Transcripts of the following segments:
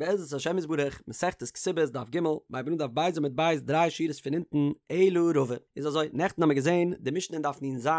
בעזרת השם יתברך, מסכת כתובות דף ג', מ'הייבט אן דף ב' עמוד ב' דריי שורות פון אונטן, אלא רבא. איז אזוי, נעכטן האמיר געזען די משנה אין דף נ"ז,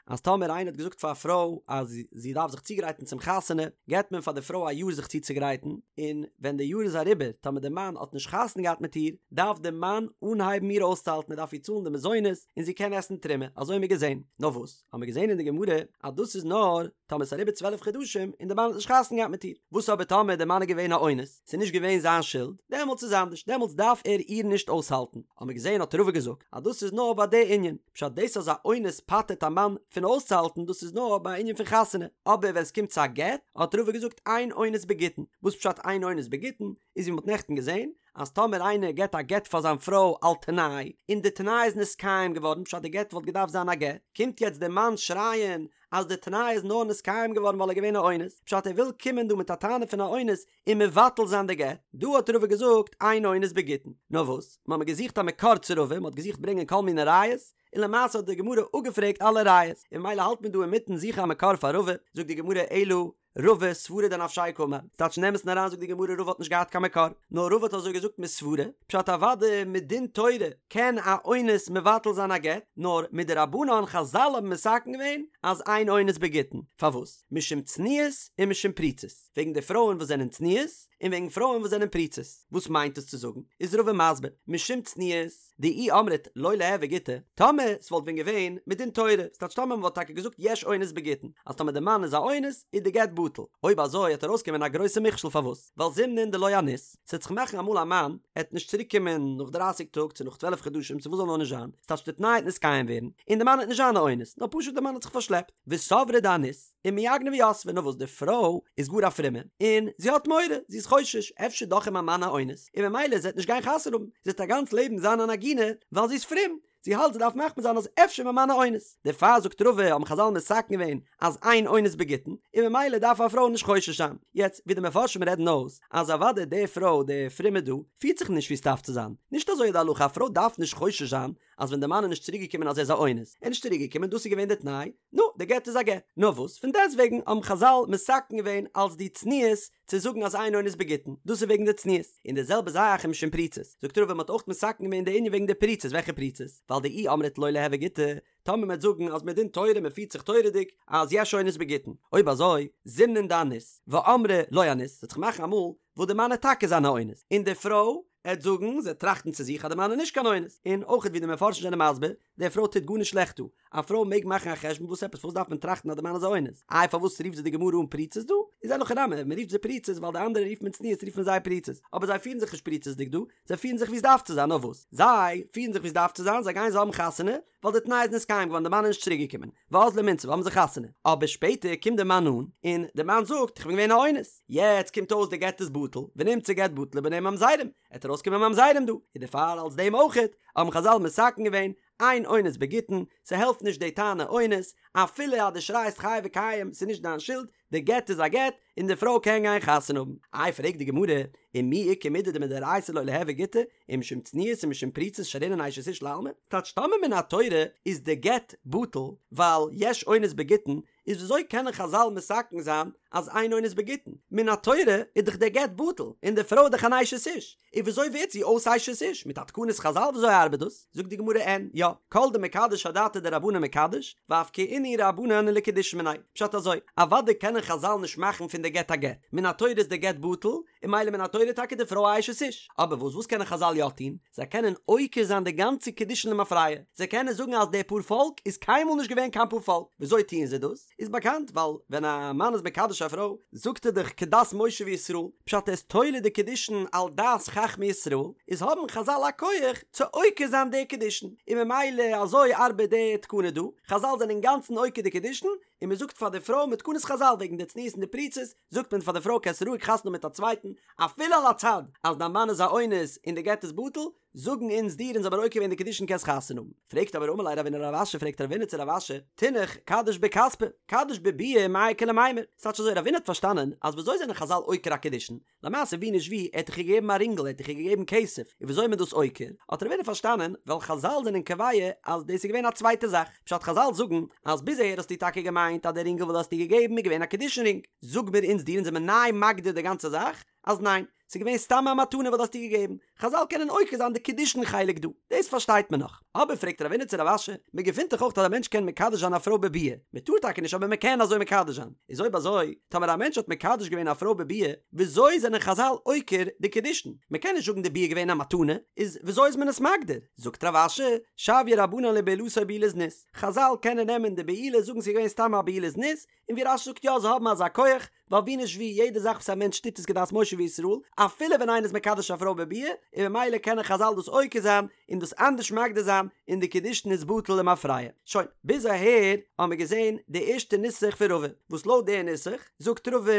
אז טאמער איינער האט געזאגט פאר א פרוי אז זי דארף זיך צוגרייטן צום חתונה, געבט מען פאר די פרוי א יאר זיך צוצוגרייטן, און ווען די יאר איז אריבער, טאמער די מאן האט נישט חתונה געהאט מיט איר, דארף די מאן אנהייבן איר אויסצוהאלטן, ער דארף איר צאלן די מזונות, און זי קען עסן תרומה, אזוי האמיר געזען. נאר וואס? האמיר געזען אין די גמרא אז דאס איז נאר טאמער ס'איז אריבער 12 חדשים און די מאן האט נישט חתונה געהאט מיט איר, וואס אבער טאמער די מאן איז געווען א אונס, ס'איז נישט געווען זיין שולד, דעמאלטס איז אנדערש, דעמאלטס דארף ער איר נישט אויסהאלטן, האמיר געזען האט רבא געזאגט אז דאס איז נאר ביי די ענין, פשט דאס אז א אונס פטר'ט א מאן פון אויסצוהאלטן דאס איז נאר ביי א ענין פון חתונה, אבער ווען ס'קומט צו א גט האט רבא געזאגט אין אונס בגיטין, וואס פשט אין אונס בגיטין, איז ווי מ'האט נעכטן געזען אז טאמער איינער געט א גט פאר זיין פרוי על תנאי, און די תנאי איז נתקיים געווארן, פשט די גט וואלט געדארפט זיין א גט, קומט יעצט דער מאן שרייען אז די תנאי איז נאר נתקיים געווארן ווייל ער איז געווען א אונס, פשט ער וויל קומען דא מיט א טענה פון א אונס און מבטל זיין די גט, דא האט רבא געזאגט אין אונס בגיטין. נאר וואס, מ'האמיר געזוכט א מקור צו רבא, מ'האט געזוכט ברענגען כל מיני ראיות, און למעשה האט די גמרא אפגעפרעגט אלע ראיות, און ממילא האלט מען דא אינמיטן זוכן א מקור פאר רבא, זאגט די גמרא אלא רבא סברא דנפשיה קאמר, ס'טייטש אין אמת'ן אריין זאגט די גמרא רבא האט נישט געהאט קיין מקור, נאר רבא האט אזוי געזאגט מסברא, פשט אוודאי מדין תורה קען א אונס מבטל זיין א גט, נאר מדרבנן חזל האבן מתקן געווען אז אין אונס בגיטין, פארוואס? משום צנועות און משום פרוצות, וועגן די פרויען וואס זענען צנועות, און וועגן פרויען וואס זענען פרוצות, וואס מיינט עס צו זאגן? איז רבא מסביר, משום צנועות, דאי אמרת לא ליהוי גיטא, טאמער ס'וואלט ווען געווען מדין תורה, ס'טייטש טאמער מ'וואלט טאקע געזאגט יש אונס בגיטין, אז טאמער די מאן איז א אונס איז די גט בטל, אויב אזוי העט ארויסקומען א גרויסע מכשול פארוואס? ווייל זימנין דלא אניס, ס'עט זיך מאכן אמאל א מאן עט נישט צוריק קומען נאך דרייסיג טאג צו נאך צוועלף חדשים צו וואס זאל נאר נישט זיין, ס'טייטש די תנאי העט נתקיים ווערן, און די מאן העט נישט זיין א אונס, נאר פשוט די מאן האט זיך פארשלעפט, וסברה דאניס. ומיעגנא ויתבה, נאר וואס די פרוי איז גאר א פרומע און זי האט מורא, זי איז חושש, אפשר דאך איז מיין מאן א אונס, און ממילא זי וועט נישט גיין חתונה האבן, זי וועט א גאנץ לעבן זיין אן עגונה, ווייל זי איז פרום, זי האלט זי דארף מחמיר זיין אז אפשר מיין מאן א אונס, דערפאר זאגט רבא האבן חזל מתקן געווען אז אין אונס בגיטין, און ממילא דארף א פרוי נישט חושש זיין, יעצט ווי די מפרשים רעדן אויס אז אוודאי די פרוי די פרומע דא פירט זיך נישט ווי עס דארף צו זיין, נישט אזוי איז די הלכה א פרוי דארף נישט חושש זיין אז ווען די מאן איז נישט צוריק געקומען אז ער איז א אונס, ער איז נישט צוריק געקומען דאס איז געווען די תנאי, נו, די גט איז א גט. נאר וואס, פון דעסטוועגן האבן חזל מתקן געווען אלס די צניעות צו זאגן אז אין אונס בגיטין, דאס איז וועגן די צניעות. און די זעלבע זאך ומשום פרוצות. זאגט רבא מ'האט אויך מתקן געווען די ענין וועגן די פרוצות, וועלכע פרוצות? ווייל דאי אמרת לא ליהוי גיטא, טאמער מ'וועט זאגן אז מדין תורה מ'פירט זיך תורה'דיג אז יש אונס בגיטין, אויב אזוי, זימנין דאניס, ואמרה לא אניס, ס'וועט זיך מאכן אמאל וואס די מאן עט טאקע זיין א אונס, און די פרוי עט זאגן, זי עט טראכטן צו זיך אז די מאן איז נישט קיין אונס, און אויך ווי די מפרשים זענען מסביר, די פרוי טוט גארנישט שלעכט דא, א פרוי מעג מאכן א חשבון וואס עפעס פארוואס דארף מען טראכטן אז די מאן איז א אונס, איי פארוואס רופט זיי די גמרא אן פרוצות דא, איז אין הכי נמי, מען רופט זיי פרוצות ווייל די אנדערע רופט מען צנועות רופט מען זיי פרוצות, אבער זיי פירן זיך נישט פריצות'דיג דא, זיי פירן זיך ווי עס דארף צו זיין, נאר וואס? זיי פירן זיך ווי עס דארף צו זיין, זיי גייען זיי האבן חתונה, ווייל די תנאי איז נתקיים געווארן די מאן איז נישט צוריק געקומען, ואזלו ומינסבא האבן זיי חתונה, אבער שפעטער קומט די מאן אן, און די מאן זאגט איך בין געווען א אונס, יעצט קומט אויס די גט איז בטל, ונמצא גט בטל וביניהם ממזרים, עט ארויסקומען ממזרים דא, און דערפאר אלס דעם אויכעט האבן חזל מתקן געווען אין אונס בגיטין, ס'העלפט נישט די טענה אונס, אפילו אז דו שרייסט חי וקיים ס'איז נישט דיין שולד, די גט איז א גט, און די פרוי קען גיין חתונה האבן. איי פרעגט די גמרא, ומי איכא מידי דמדאורייתא לא ליהוי גיטא, ומשום צנועות ומשום פרוצות שרינן אשת איש לעלמא? טייטש טאמער מן התורה איז די גט בטל ווייל יש אונס בגיטין, איז וויאזוי קענען חזל מתקן זיין אז אין אונס בגיטין? מן התורה איז דאך דער גט בטל, און די פרוי איז דאך אן אשת איש, און וויאזוי ווערט זי אויס אשת איש? מיט א תקנת חזל וויאזוי ארבעט דאס? זאגט די גמרא אין, יא, כל דמקדש אדעתא דרבנן מקדש, ואפקעינהו רבנן לקידושין מיניה. פשט אזוי, אוודאי קענען חזל נישט מאכן פון די גט א גט, מן התורה איז די גט בטל, און ממילא מן התורה טאקע די פרוי א אשת איש. אבער וואס וואס קענען חזל יא טון? זיי קענען עוקר זיין די גאנצע קידושין למפרע, זיי קענען זאגן אז די פארפאלק איז קיינמאל נישט געווען קיין פארפאלק. וויאזוי טוען זיי דאס? איז באקאנט ווייל ווען א מאן איז מקדש א פרוי זאגט ער דאך כדת משה וישראל, פשט ער איז תולה די קידושין על דעת חכמי ישראל, איז האבן חזל א כח צו עוקר זיין די קידושין, און ממילא אזוי ארבעט די תקנה דא, חזל זענען אינגאנצן עוקר די קידושין, און מען זאגט פאר די פרוי מיט תקנת חזל וועגן די צניעות און די פריצות, זאגט מען פאר די פרוי קענסט רואיג חתונה האבן מיט א צווייטן, אפילו על הצד אז דיין מאן איז א אונס און די גט איז בטל, זאגן אונז דיר אונז האבן עוקר געווען די קידושין קענסט חתונה האבן. פרעגט אבער אמר ליה רבינא לרב אשי פרעגט רבינא צו רב אשי, תינח קדיש בכספא, קדיש בביאה מאי איכא למימר, ס'טייטש אזוי רבינא האט פארשטאנען אז וויאזוי זענען חזל עוקר א קידושין, למעשה ווי נישט ווי, ער האט דאך איר געגעבן א רינגל, ער האט דאך איר געגעבן כסף, און וויאזוי איז מען דאס עוקר? האט רבינא פארשטאנען, ווייל חזל זענען קובע אז דאס איז געווען א צווייטע זאך, פשט חזל זאגן אז ביז אהער האסטו טאקע געמיינט אז די רינגל וואס דו האסט איר געגעבן איז געווען א קידושין רינג, זאג מיר אונז דיר אונז זעמיר ניי מגדיר די גאנצע זאך אז ניין, ס'איז געווען סתם א מתנה וואס דו האסט איר געגעבן, חזל קענען עוקר זיין די קידושין חלק דא, דאס פארשטייט מען נאך. אבער פרעגט רבינא צו רב אשי, מען געפינט דאך אויך אז א מענטש קען מקדש זיין א פרוי בביאה, מען טאר טאקע נישט אבער מען קען אזוי מקדש זיין, איז אויב אזוי, טאמער א מענטש האט מקדש געווען א פרוי בביאה, וויאזוי זענען חזל עוקר די קידושין? מען קען נישט זאגן די ביאה איז געווען א מתנה, איז וויאזוי איז מען עס מגדיר? זאגט רב אשי, שויי רבנן לבעילתו בעילת זנות, חזל קענען נעמען די בעילה זאגן ס'איז געווען סתם א בעילת זנות, און ווי רש"י זאגט יא זיי האבן אזא כח, ווייל ווי נישט ווי יעדע זאך וואס א מענטש טוט איז כדת משה וישראל, אפילו ווען איינער איז מקדש א פרוי בביאה, און ממילא קענען חזל דאס עוקר זיין און דאס אנדערש מגדיר זיין, און די קידושין איז בטל למפרע. שוין, ביז אהער האבן מיר געזען די ערשטע נוסח פון רבא, וואס לויט די נוסח זאגט רבא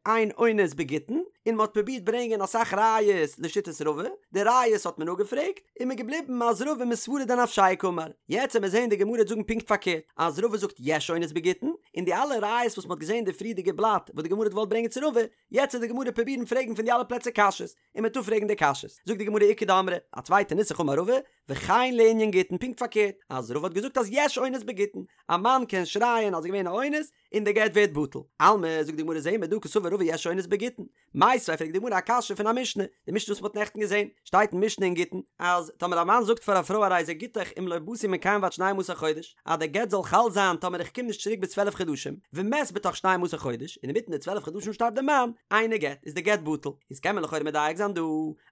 אין אונס בגיטין, און מען האט פרובירט ברענגען אסאך ראיות לשיטת רבא, די ראיות האט מען אפגעפרעגט, און מ'איז געבליבן אז רבא מסברא דנפשיה קאמר. יעצט וועט מען זעהן די גמרא וועט זאגן פונקט פארקערט, אז רבא זאגט יש אונס בגיטין, און די אלע ראיות וואס מ'האט געזעהן אין די פריערדיגע בלאט וואס די גמרא האט געוואלט ברענגען צו רבא, יעצט וועט די גמרא פרובירן פרעגן פון די אלע פלעצער קשיות, און מ'וועט אפפרעגן די קשיות. זאגט די גמרא איכא דאמרי, א צווייטע נוסח אמר רבא, וכן לענין גיטין פונקט פארקערט, אז רבא האט געזאגט אז יש אונס בגיטין, א מאן קען שרייען אז ס'איז געווען א אונס, און די גט ווערט בטל. אלמא, זאגט די גמרא זעהן מיר דא קסבר רבא יש אונס בגיטין. מיתיבי פרעגט די גמרא א קשיא פון א משנה, די משנה וואס מ'האט נעכטן געזען, שטייט אין משנה אין גיטין, אז טאמער א מאן זאגט פאר א פרוי הרי זה גיטך אם לא באתי מכאן ועד שנים עשר חודש, אז די גט זאל חל זיין טאמער איך קום נישט צוריק ביז 12 חדשים, ומת בתוך שנים עשר חודש, און אינמיטן די 12 חדשים שטארבט די מאן, אינו גט, איז די גט בטל. איז קען מען לכאורה מדייק זיין דא,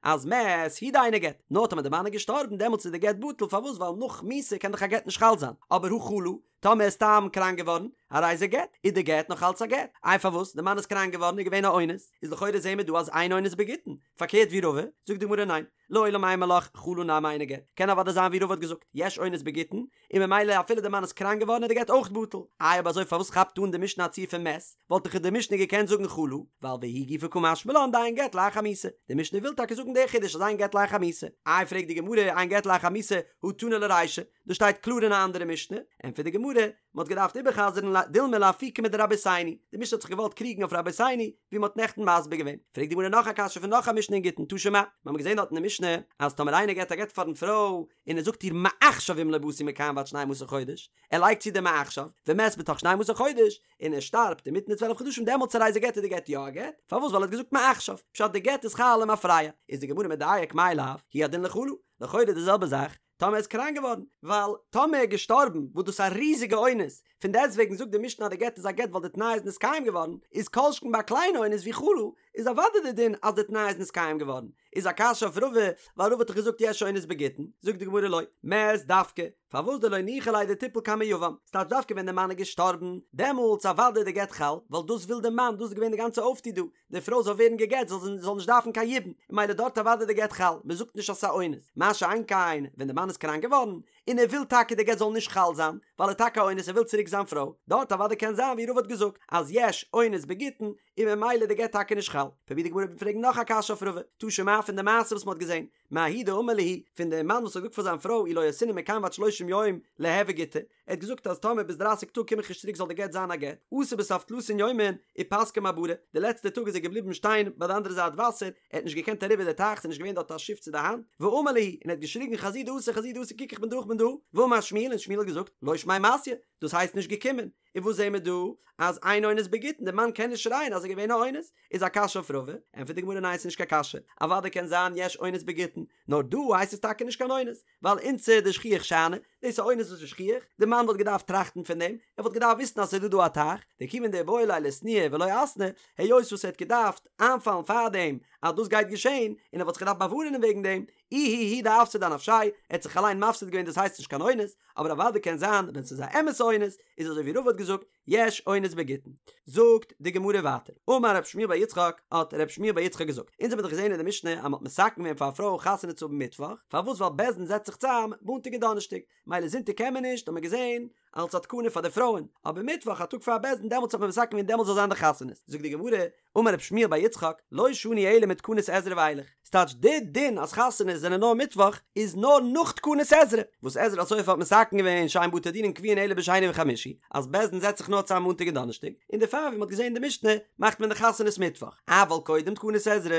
אז מת הוא דאינו גט, נאר טאמער די מאן איז געשטארבן דעמאלטס איז די גט בטל, פארוואס ווייל נאך מיתה קען דאך א גט נישט חל זיין, אבער הא חלה, טאמער איז סתם קראנק געווארן, הרי זה גט, איז די גט נאך אלץ א גט. איי פארוואס? די מאן איז קראנק געווארן איז געווען א אונס, איז לכאורה זעהן מיר דא אז אין אונס בגיטין, פארקערט ווי רבא, זאגט די גמרא ניין, לעולם אימא לך חלה נמי אינו גט, קען אוודאי זיין ווי רבא האט געזאגט, יש אונס בגיטין, און ממילא אפילו די מאן איז קראנק געווארן איז די גט אויך בטל. איי אויב אזוי פארוואס כאפט אן די משנה א ציור פון מת, וואלט דאך די משנה געקענט זאגן חלה, ווייל והיא גופא קא משמע לן דאין גט לאחר מיתה, די משנה וויל טאקע זאגן די חידוש אז אין גט לאחר מיתה. איי פרעגט די גמרא אין גט לאחר מיתה, הא תנא ליה רישא, דאס שטייט קלאר אין א אנדערע משנה, ענטפערט די גמרא, מען האט געדארפט איבער'חזר'ן דילמא לאפוקי מדרבותינו, די משנה האט זיך געוואלט קריגן אויף רבותינו, ווי מען האט נעכטן מסביר געווען. פרעגט די גמרא נאך א קשיא פון נאך א משנה אין גיטין, תא שמע, מיר האבן געזען דארט אין די משנה, אז טאמער איינער געבט א גט פארן פרוי, און ער זאגט איר מעכשיו אם לא באתי מכאן ועד שנים עשר חודש, ער לייגט צו די מעכשיו, ומת בתוך שנים עשר חודש, און ער שטארבט אינמיטן די צוועלף חדשים דעמאלטס הרי זה גט איז די גט יא א גט, פארוואס ווייל ער האט געזאגט מעכשיו, פשט די גט איז חל למפרע, איז די גמרא מדייק מאי לאו, הוא הדין לחלה, לכאורה די זעלבע זאך, טאמער ער איז קראנק געווארן, ווייל טאמער ער איז געשטארבן, וואס דאס איז א ריזיגע אונס, פון דעסטוועגן זאגט די משנה אז די גט איז א גט ווייל די תנאי איז נתקיים געווארן, איז כל שכן ביי א קליינע אונס ווי חלה, איז אוודאי די דין אז די תנאי איז נתקיים געווארן, איז א קשיא אויף רבא, ווייל רבא האט דאך געזאגט יש אונס בגיטין, זאגט די גמרא לא, מת דווקא, פארוואס דלא ניחא ליה דתיפול קמי יבם, ס'טייטש דווקא ווען די מאן איז געשטארבן, דעמאלטס אוודאי איז די גט חל, ווייל דאס וויל די מאן, דאס איז געווען די גאנצע אויפטו דא, די פרוי זאל ווערן גע'גט זאל זי זאל נישט דארפן קיין יבום, און ממילא דארט אוודאי די גט חל, מען זאגט נישט אז ס'איז א אונס, מה שאין כן ווען די מאן איז קראנק געווארן, און ער וויל טאקע די גט זאל נישט חל זיין, ווייל ער איז טאקע א אונס ער וויל צוריק זיין פרוי, דארט אוודאי קען זיין ווי רבא האט געזאגט אז יש אונס בגיטין, און ממילא די גט טאקע נישט חל. פרובירט די גמרא פרעגן נאך א קשיא אויף רבא, תא שמע פון די מעשה וואס מען האט געזען, מההוא דאמר להו, פון דעם מאן וואס האט געזאגט פאר זיין פרוי אי לא אתינא מכאן ועד שלושים יום ליהוי גיטא, ער האט געזאגט אז טאמער ביז דרייסיג טאג קום איך נישט צוריק זאל די גט זיין א גט, אתא בסוף תלתין יומין ופסקה מעברא, די לעצטע טאג איז ער געבליבן שטיין ביי די אנדערע זייט וואסער, ער האט נישט געקענט אריבער די טייך, ס'איז נישט געווען דארט א שיף צו די האנט, ואמר להו, און ער האט געשריגן חזו דאתא חזו דאתא קוק איך בין דא איך בין דא, ואמר שמואל און שמואל האט געזאגט, לא שמיה מתיא, דאס הייסט נישט געקומען, און וואס זעהן מיר דא? אז אין אונס בגיטין, די מאן קען נישט שרייען אז עס איז געווען א אונס, איז א קשיא אויף רבא, ענטפערט די גמרא ניין ס'איז נישט קיין קשיא, אוודאי קען זיין יש אונס בגיטין, נאר דא הייסט עס טאקע נישט קיין אונס, ווייל אונסא דשכיח שאני, דאס איז א אונס וואס איז שכיח, די מאן וואלט געדארפט טראכטן פון דעם, ער וואלט געדארפט וויסן אז ס'איז דא דא א טייך, דכיון דאיבעי ליה לאתנויי ולא אתני, היות וואס ער האט געדארפט איינפאלן פארדעם אז דאס גייט געשען, און ער וואלט זיך געדארפט באווארענען וועגן דעם, איהו הוא דאפסיד אנפשיה, ער האט זיך אליין מפסיד געווען דאס הייסט נישט קיין אונס, אבער אוודאי קען זיין ווען ס'איז א אמת'ע אונס, איז אזוי ווי רבא האט געזאגט, יש אונס בגיטין. זאגט די גמרא ווייטער, אמר רב שמואל בר יצחק, האט רב שמואל בר יצחק געזאגט, אונז האבן דאך געזען אין די משנה אז מ'האט מתקן געווען פאר א פרוי חתונה צו האבן מיטוואך, פארוואס ווייל בית דין זעצט זיך צאם מאנטאג און דאנערשטאג, מילא זונטאג קען מען נישט, האט מען געזען, אלס א תקנה פאר די פרויען, אבער מיטוואך א טאג פאר בית דין דעמאלטס האט מען מתקן געווען דעמאלטס זאל זיין די חתונות, זאגט די גמרא, אמר רב שמואל בר יצחק, לא שנו אלא מתקנת עזרא ואילך, ס'טייטש די דין אז חתונות זענען נאר מיטוואך איז נאר נאך תקנת עזרא, וואס עזרא הסופר האט מתקן געווען שאין בתי דינין קבועין אלא בשני וחמישי, אז בית דין זעצט זיך נאר צאם מאנטאג און דאנערשטאג, און דערפאר ווי מ'האט געזען אין די משנה מאכט מען די חתונות מיטוואך, אבל קודם תקנת עזרא,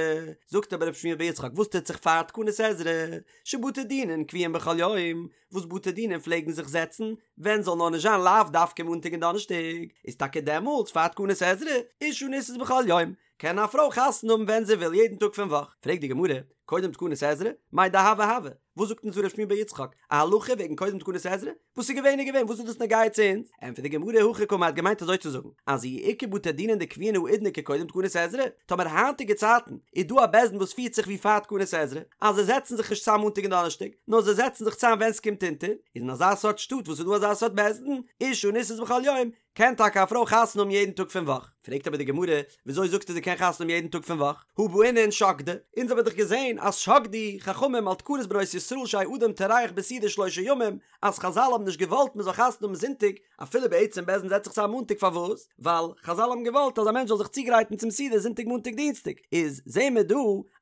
זאגט אבער רב שמואל בר יצחק וואס טוט זיך פאר תקנת עזרא, שבתי דינין קבועין בכל יום, וואס בתי דינים פלעגן זיך זעצן ווען זאל נאר נישט זיין לאו דווקא מאנטאג און דאנערשטאג, איז טאקע דעמאלטס פאר תקנת עזרא, אשה נישאת בכל יום, קען א פרוי חתונה האבן ווען זי וויל יעדן טאג פון וואך. פרעגט די גמרא, קודם תקנת עזרא, מאי דהוה הוה, וואס זאגט אונז ר' שמואל בר יצחק, א הלכה וועגן קודם תקנת עזרא? וואס איז געווען איז געווען, וואס איז דאס נוגע צו אונז? ענטפערט די גמרא, הכי קאמר, האט געמיינט אזוי צו זאגן, אז אי איכא בתי דינין דקביעין האידנא כקודם תקנת עזרא, טאמער היינטיגע צייטן איז דא א בית דין וואס פירט זיך ווי פאר תקנת עזרא, אז זיי זעצן זיך נישט צאם מאנטאג און דאנערשטאג, נאר זיי זעצן זיך צאם ווען ס'קומט אונטער, איז אין אזא סארט שטאט וואס איז דא אזא סארט בית דין, אשה נישאת בכל יום, קען טאקע א פרוי חתונה האבן יעדן טאג פון וואך? פרעגט אבער די גמרא, וויאזוי זאגסטו זי קען חתונה האבן יעדן טאג פון וואך? הא בעינן שקדי, אונז האבן דאך געזען אז שקדו חכמים על תקנת בנות ישראל שיהא אדם טורח בסעודה שלושה ימים, אז חזל האבן נישט געוואלט מען זאל חתונה האבן זונטאג, אפילו בעצם בית דין זעצט זיך צאם מאנטאג פארוואס? ווייל חזל האבן געוואלט אז א מענטש זאל זיך צוגרייטן צום סעודה זונטאג מאנטאג דינסטאג, איז זעהן מיר דא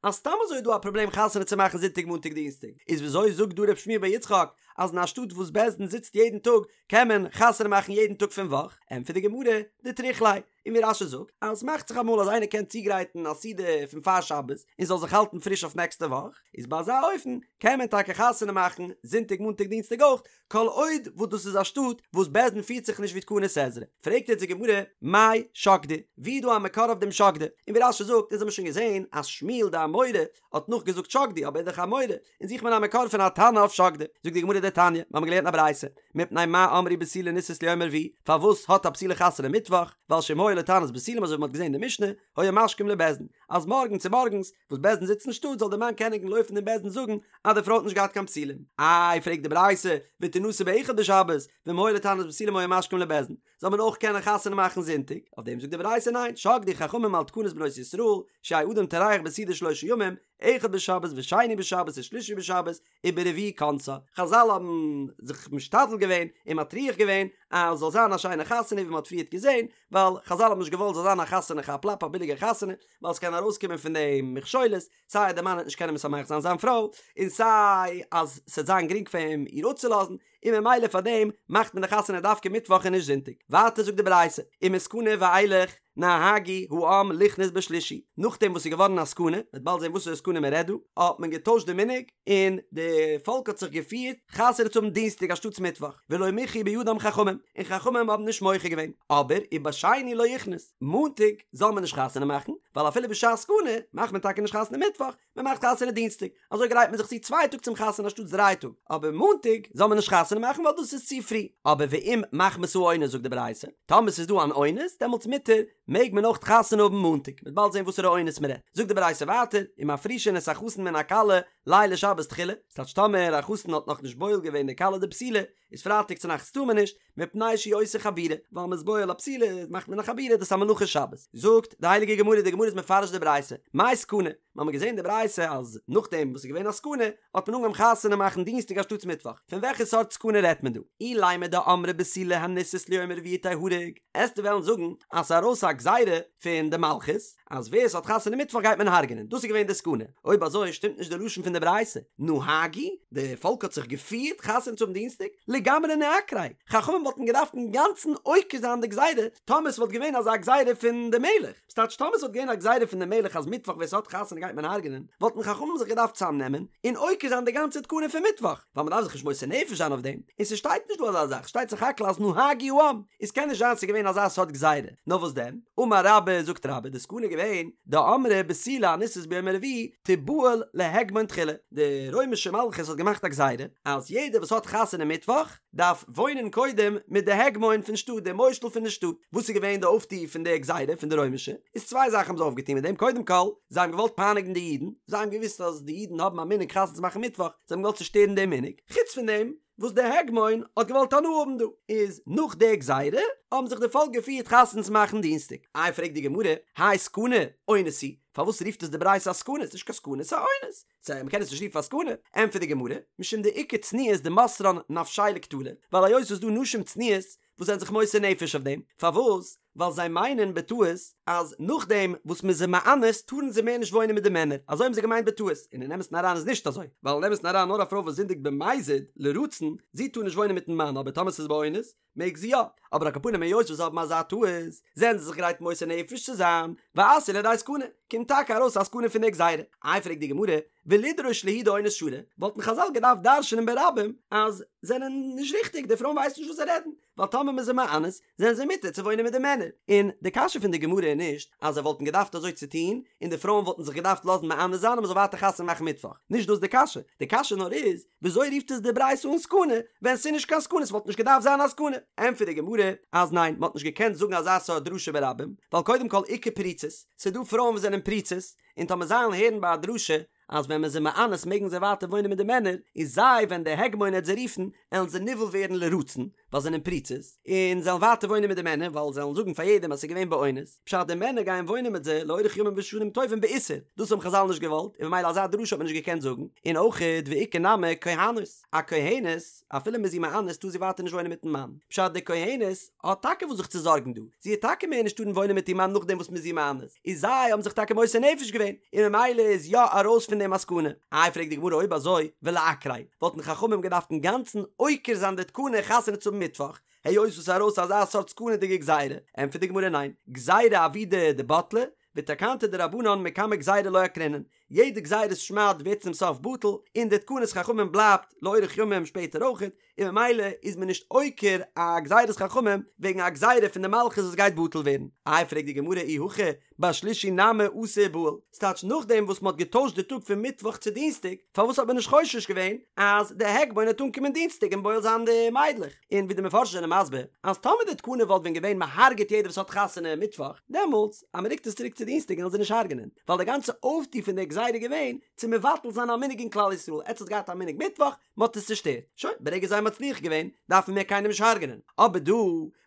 אז סתם אזוי איז דא א פראבלעם חתונה צו מאכן זונטאג מאנטאג דינסטאג, איז וויאזוי זאגט דא ר' שמואל בר יצחק אז אין א שטאט וואס בית דין זיצט יעדן טאג קען מען חתונה מאכן יעדן טאג פון וואך? ענטפערט די גמרא, דטריח ליה, און ווי רש"י זאגט אז ס'מאכט זיך אמאל אז איינער קען צוגרייטן א סעודה פון פאר שבת און זאל זיך האלטן פריש אויף נעקסטע וואך, איז ביי אזא אופן קען מען טאקע חתונה מאכן זונטאג מאנטאג דינסטאג אויך, כל עוד וואס דאס איז א שטאט וואס בית דין פירט זיך נישט ווי תקנת עזרא. פרעגט יעצט די גמרא, מאי שקדו? ווי איז דא א מקור אויף דעם שקדו? און ווי רש"י זאגט, אונז האבן שוין געזען אז שמואל די אמורא האט נאכגעזאגט שקדו, אבער ער איז דאך א אמורא, און זוכט מען א מקור פון א תנא אויף שקדו. זאגט די גמרא דתניא, מיר האבן געלערנט א ברייתא, מפני מה אמרו בתולה נישאת ליום הרביעי, פארוואס האט א בתולה חתונה מיטוואך, ווייל שאם היה לה תענית בתולים אזוי ווי מען האט געזען אין די משנה, היו משכים לבית דין, אז מארגן צו מארגנס וואס בית דין זיצט אין שטאט זאל דער מאן קענען לויפן אין בית דין זאגן אז די פרוי האט נישט געהאט קיין בתולים. איי פרעגט די ברייתא, ותנשא באחד בשבת, ואם היה לה תענית בתולים היו משכים לבית דין, זאל מען אויך קענען חתונה מאכן זונטאג? אויף דעם זאגט די ברייתא ניין, שקדו חכמים על תקנת בנות ישראל, שיהא אדם טורח בסעודה שלושה ימים, אחד בשבת ושני בשבת ושלישי בשבת, וברביעי כונסה. חזל האבן זיך משתדל געווען און מטריח געווען אז זאל זיין א שיינע חתונה ווי מען האט פריערט געזען, ווייל חזל האבן נישט געוואלט זאל זיין א חתונה כאפ לאפ א ביליגע חתונה, ווייל ס'קען ארויסקומען פון דעם מכשולות, סיי אז דער מאן וועט נישט קענען משמח זיין זיין פרוי, און סיי אז ס'וועט זיין גרינג פאר אים איר אפצולאזן, און ממילא פאר דעם מאכט מען די חתונה דווקא מיטוואך און נישט זונטאג. ווייטער זאגט די ברייתא, ומסכנה ואילך נהגו העם לכנוס בשלישי, נאכדעם וואס ס'איז געווארן א סכנה, מ'וועט באלד זען וואסערע סכנה מ'רעדט דא, האט מען געטוישט די מנהג, און די פאלק האט זיך געפירט חתונה צו האבן דינסטאג אנשטאטס מיטוואך, ולא מיחו בידם חכמים, און חכמים האבן נישט מוחה געווען, אבער ובשני לא יכנוס, מאנטאג זאל מען נישט חתונה מאכן, ווייל אפילו בשעת סכנה מאכט מען טאקע נישט חתונה מיטוואך, מען מאכט חתונה דינסטאג, אזוי גרייט מען זיך צו צוויי טאג צום חתונה אנשטאטס דריי טאג, אבער מאנטאג זאל מען נישט חתונה מאכן ווייל דאס איז צו פרי, אבער ואם מחמת האונס זאגט די ברייתא, טאמער ס'איז דא אן אונס דעמאלטס מותר, מעג מען אויך חתונה האבן מאנטאג, מ'וועט באלד זען וואסערע אונס מען רעדט, זאגט די ברייתא ווייטער, ומפרישין את החתן מן הכלה לילי שבת תחילה, ס'טייטש טאמער א חתן האט נאכנישט בועל געווען די כלה די בתולה, איז פרייטאג צונאכטס טאר מען נישט, מפני שהוא עושה חבורה, ווייל מ'איז בועל א בתולה מאכט מען א חבורה דאס איז א מלאכה שבת. זאגט די הייליגע גמרא, די גמרא איז מפרש די ברייתא, מאי סכנה? מ'האמיר געזען די ברייתא אז נאכדעם וואס ס'איז געווען א סכנה האט מען אנגעהויבן חתונה מאכן דינסטאג אנשטאטס מיטוואך, פון וועלכע סארט סכנה רעדט מען דא? אילימא דאמרי בתולה הנישאת ליום רביעי תיהרג, עסטו וועלן זאגן אז ס'איז ארויס א גזירה פון די מלכות אז ווער ס'האט חתונה מיטוואך גייט מען הרג'נען, דאס איז געווען די סכנה, אויב אזוי שטימט נישט די לשון פון די ברייתא, נהגו, די פאלק האט זיך געפירט חתונה צו האבן דינסטאג, לגמרי ניעקריה, חכמים וואלטן געדארפט אינגאנצן עוקר זיין די גזירה טאמער ס'וואלט געווען אזא גזירה פון די מלך, ס'טייטש טאמער ס'וואלט געווען א גזירה פון די מלך אז מיטוואך ווער ס'האט חתונה גייט מען הרג'נען, וואלטן חכמים זיך געדארפט צאמנעמען און עוקר זיין די גאנצע תקנה פון מיטוואך, ווייל מ'דארף זיך נישט מוסר נפש זיין אויף דעם, און ס'שטייט נישט דא אזא זאך, שטייט סך הכל אז נהגו העם, איז קען נישט זיין ס'איז געווען אזא סארט גזירה, נאר וואס דען? אמר רבה, זאגט רבה, די סכנה איז געווען, דאמרי בתולה הנישאת ביום הרביעי תיבעל להגמון תחילה, די רוימישע מלכות האט געמאכט א גזירה אז יעדער וואס האט חתונה מיטוואך דארף וואוינען קודם מיט די הגמון פון שטאט, די מושל פון די שטאט. וואס איז געווען די אויפטו פון די גזירה פון די רוימישע? איז צוויי זאכן האבן זיי אויפגעטון מיט דעם, קודם כל, זיי האבן געוואלט פייניגן די אידן, זיי האבן געוואוסט אז די אידן האבן א מנהג חתונה צו מאכן מיטוואך, זיי האבן געוואלט צושטערן דעם מנהג, חוץ פון דעם וואס די הגמון האט געוואלט הנאה האבן דא, איז נאך די גזירה האבן זיך די פאלק געפירט חתונה צו מאכן דינסטאג. איי פרעגט די גמרא, האי סכנה, אונס הוא, פארוואס רופט עס די ברייתא א סכנה? ס'נישט קיין סכנה, ס'איז א אונס. סא מ'קען עס נישט רופן א סכנה, ענטפערט די גמרא, משום דאיכא צנועות דמסרן נפשייהו לקטלא, ווייל היות ס'איז דא נשים צנועות וואס זענען זיך מוסר נפש אויף דעם, פארוואס? ווייל זיי מיינען בטעות אז נאכדעם וואס מ'איז זיי מאנס טארן זיי מער נישט וואוינען מיט די מענער, אזוי האבן זיי געמיינט בטעות, און אין אמת'ן אריין איז נישט אזוי, ווייל אין אמת'ן אריין נאר א פרוי וואס זינדיגט במזיד, לרצון, זי טאר נישט וואוינען מיט'ן מאן, אבער טאמער ס'איז באונס, מעג זי יא, אבער על כל פנים היות וואס זיי האבן אזא טעות, זענען זיי זיך גרייט מוסר נפש צו זיין, ואתו לידי סכנה, קומט טאקע ארויס א סכנה פון די גזירה. איי פרעגט די גמרא, ולידרוש להו דאונס שרי, וואלטן חזל געדארפט דרש'נען ברבים אז זענען נישט ריכטיג, די פרויען ווייסן נישט וואס זיי רעדן, ווייל טאמער מ'איז זיי מאנס זענען זיי מותר צו וואוינען מיט די מענער, און די קשיא פון די גמרא איז נישט אז זיי וואלטן געדארפט אזוי צו טון און די פרויען וואלטן זיך געדארפט לאזן מאנס זיין און מ'זאל ווייטער חתונה מאכן מיטוואך, נישט דאס די קשיא, די קשיא נאר איז וויאזוי רופט עס די ברייתא אן סכנה ווען ס'איז נישט קיין סכנה ס'וואלט נישט געדארפט זיין א סכנה, ענטפערט די גמרא אז ניין מ'האט נישט געקענט זאגן אזא סארט דרשה ברבים ווייל קודם כל איכא פריצות, ס'איז דא פרויען וואס זענען פריצות און טאמער זיי וועלן הערן ביי א דרשה אז ווען מ'איז זיי מאנס מעגן זיי ווייטער וואוינען מיט די מענער, איז זיי ווען דער הגמון העט זיי רופן עלן זיי נבעל ווערן לרצון, ווייל זיי זענען פריצות, און זיי וועלן ווייטער וואוינען מיט די מענער ווייל זיי וועלן זאגן פאר יעדעם אז ס'איז געווען באונס, פשט די מענער גייען וואוינען מיט זיי לאורך ימים ושנים טובים באיסור, דאס האבן חזל נישט געוואלט, און ממילא אזא דרשה האט מען נישט געקענט זאגן, און אויכעט ואיכא נמי כהנות, א כהנת, אפילו מ'איז איר מאנס טאר זי ווייטער נישט וואוינען מיטן מאן, פשט די כהנת האט טאקע וואס זיך צו זארגן דא, זי העט טאקע מער נישט טארן וואוינען מיט איר מאן נאכדעם וואס מ'איז איר מאנס, איז זיי האבן זיך טאקע מוסר נפש געווען, און ממילא איז יא ארויס פון דעם א סכנה. איי פרעגט די גמרא אויב אזוי ולעקריה, וואלטן חכמים געדארפט אינגאנצן עוקר זיין די תקנה חתונה צו האבן מיטוואך, היות וואס איז ארויס אזא סארט סכנה'דיגע גזירה, ענטפערט די גמרא ניין, גזירה עבידא דבטלה, ותקנתא דרבנן מקמי גזירה לא עקרינן, יעדע גזירת שמד ווערט צום סוף בטל, און די תקנת חכמים בלייבט לאורך ימים שפעטער אויכעט, און ממילא איז מען נישט עוקר א גזירת חכמים וועגן א גזירה פון די מלכות וואס גייט בטל ווערן. איי פרעגט די גמרא אי הכי בשלישי נמי אתי ובעיל, ס'טייטש נאכדעם וואס מ'האט געטוישט די טאג פון מיטוואך צו דינסטאג, פארוואס האט מען נישט חושש געווען אז די הגמון וועט אנקומען דינסטאג און בועל זיין די מיידלעך? און ווי די מפרשים זענען מסביר אז טאמער די תקנה וואלט ווען געווען מ'הרג'עט יעדער וואס האט חתונה מיטוואך, דעמאלטס אז מ'רוקט עס צוריק צו דינסטאג וועלן זיי נישט הרג'נען, ווייל די גאנצע אויפטו פון די גזירה איז געווען צו מבטל זיין א מנהג אין כלל ישראל, עטס האטס געהאט א מנהג מיטוואך, מ'האט עס צושטערט, שוין, ברגע זיי האבן מצליח געווען, דארף מען מער קיינעם נישט הרג'נען. אבער דא,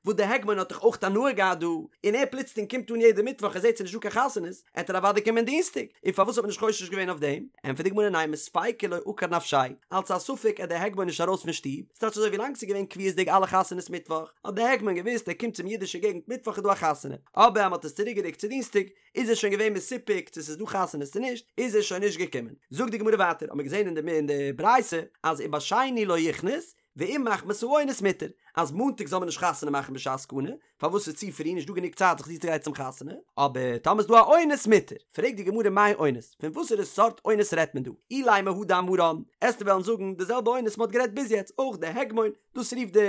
וואס די הגמון האט דאך אויך הנאה געהאט דא, און ער פלוצלינג קומט אן יעדע מיטוואך ער זעט ס'איז נישט דא קיין חתונות, עט ער אוודאי קומען דינסטאג, און פארוואס האט מען נישט חושש געווען אויף דעם? ענטפערט די גמרא ניין מספיקא לא עקר נפשיה, אלץ א ספק עט די הגמון נישט ארויס פון שטוב, ס'טייטש אזוי ווי לאנג ס'איז געווען קביעות'דיג אלע חתונות מיטוואך, האט די הגמון געוואוסט ער קומט צום אידישע געגנט מיטוואך איז דא א חתונה, אבער אז מ'האט עס צוריקגערוקט צו דינסטאג, איז ער שוין געווען מסופק צו ס'איז דא חתונות צו נישט, איז ער שוין נישט געקומען. זאגט די גמרא ווייטער, האמיר געזען אין די אין די ברייתא אז ובשני לא יכנוס, ואם מחמת האונס מותר, אז מאנטאג זאל מען נישט חתונה מאכן בשעת סכנה, פארוואס ס'איז צו פרי נישט דא גענוג צייט זיך צוצוגרייטן צום חתונה, אבער טאמער איז דא א אונס מותר. פרעגט די גמרא מאי אונס, פון וואסערע סארט אונס רעדט מען דא? אילימא הא דאמרן, עסטו וועלן זאגן די זעלבע אונס מ'האט גערעדט ביז יעצט, אויך די הגמון, דאס רופט די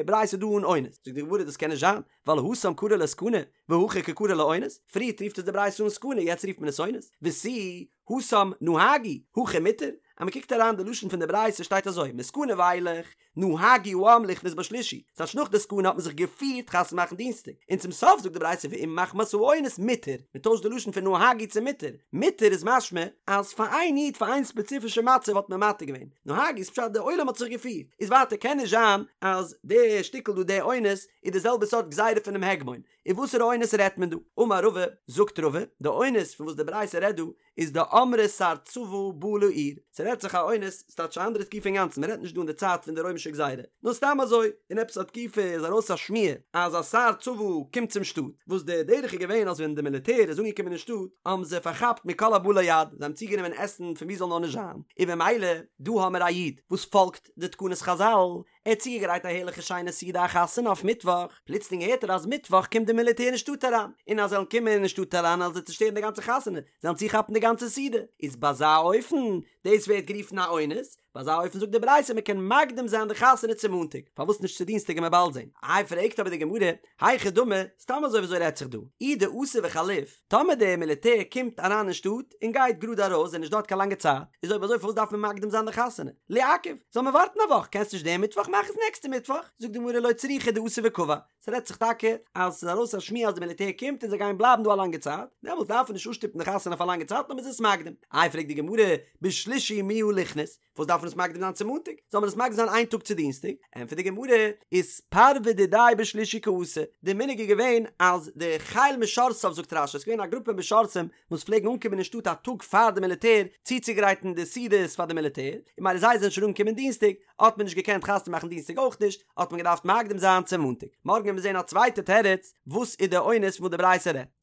ברייתא דא אן אונס. זאגט די גמרא דאס קען נישט זיין, ווייל התם קרי לה סכנה, והכא קא קרי לה אונס, פריערט רופט עס די ברייתא אן סכנה יעצט רופט מען עס אונס, ותו התם נהגו, הכא מותר, אז מען קוקט אריין די לשון פון די ברייתא שטייט אזוי, מסכנה ואילך, נהגו העם לכנוס בשלישי, ס'טייטש נאך די סכנה האט מען זיך געפירט חתונה מאכן דינסטאג, און צום סוף זאגט די ברייתא ואם מחמת האונס מותר, מען טוישט די לשון פון נהגו צו מותר, מותר איז משמע אז פאר איין איד פאר איין ספעציפישע מצב האט מען מתיר געווען, נהגו איז פשט די עולם האט זיך געפירט, איז ווייטער קען נישט זיין אז די שטיקל דא די אונס איז די זעלבע סארט גזירה פונעם הגמון, און וואסערע אונס רעדט מען דא? אמר רבא, זאגט רבא, די אונס פון וואס די ברייתא רעדט דא, איז דאמרי שר צבא בא לעיר, ס'רעדט זיך א אונס, ס'טייטש א אנדערע תקופה אינגאנצן, מ'רעדט נישט דא אין די צייט פון די רוימישע גזירה, נאר סתם אזוי, אין עפעס א תקופה איז ארויס א שמועה אז א שר צבא קומט צום שטאט, וואס די דרך איז געווען אז ווען די מיליטער איז אנגעקומען אין שטאט, האבן זיי פארכאפט מכל הבא ליד, זיי האבן צוגענומען עסן פון וואו זאל נאר נישט זיין, און במילא, דא האמיר א איד וואס פאלגט די תקנות חזל, ער האט צוגעגרייט א הערליכע שיינע סעודה א חתונה אויף מיטוואך, פלוצלינג הערט ער אז מיטוואך קומט די מיליטער אין שטאט אריין, און אז זיי וועלן קומען אין שטאט אריין וועלן זיי צושטערן די גאנצע חתונה, זיי וועלן צוכאפן די גאנצע סעודה, איז ביי אזא אופן, דאס ווערט גערופן א אונס, ביי אזא אופן זאגט די ברייתא מען קען מקדים זיין די חתונה צו מאנטאג, פארוואס נישט צו דינסטאג וועט מען באלד זען. איי פרעגט אבער די גמרא, היכי דמי, סתם אזוי וויאזוי רעדט זיך דא, אי דאתו וחליף, טאמער די מיליטער קומט אריין אין שטאט און גייט גראד ארויס זענען נישט דארט קיין לאנגע צייט, איז אויב אזוי פארוואס דארף מען מקדים זיין די חתונה? ליעכב, זאל מען ווארטן א וואך, קענסט נישט דעם מיטוואך מאך עס נעקסטע מיטוואך, זאגט די גמרא לא צריכא דאתו וקבע, ס'רעדט זיך טאקע אז ס'איז ארויס א שמועה אז די מיליטער קומט און זיי גייען בלייבן דא א לאנגע צייט, דעמאלטס דארף מען נישט אפשטופן די חתונה אויף א לאנגע צייט נאר מ'איז עס מקדים. איי פרעגט די גמרא, בשלישי מיהא ליכנס, וואס דארף מען עס מקדים זיין צו מאנטאג? זאל מען עס מקדים זיין איין טאג צו דינסטאג? ענטפערט די גמרא, איתפרוי דידיה בשלישי קאתו, די מנהג איז געווען אז די חיל משרתיו זאגט רש"י, עס איז געווען א גרופע משרתים וואס פלעגן אנקומען אין שטאט א טאג פאר די מיליטער צוצוגרייטן די סעודות פאר די מיליטער, און ממילא זיי זענען שוין אנגעקומען דינסטאג, האט מען נישט געקענט חתונה מאכן דינסטאג אויך נישט, האט מען געדארפט מקדים זיין צו מאנטאג. מארגן וועט מען זען א צווייטע תירוץ וואס איז די אונס פון וואס די ברייתא רעדט.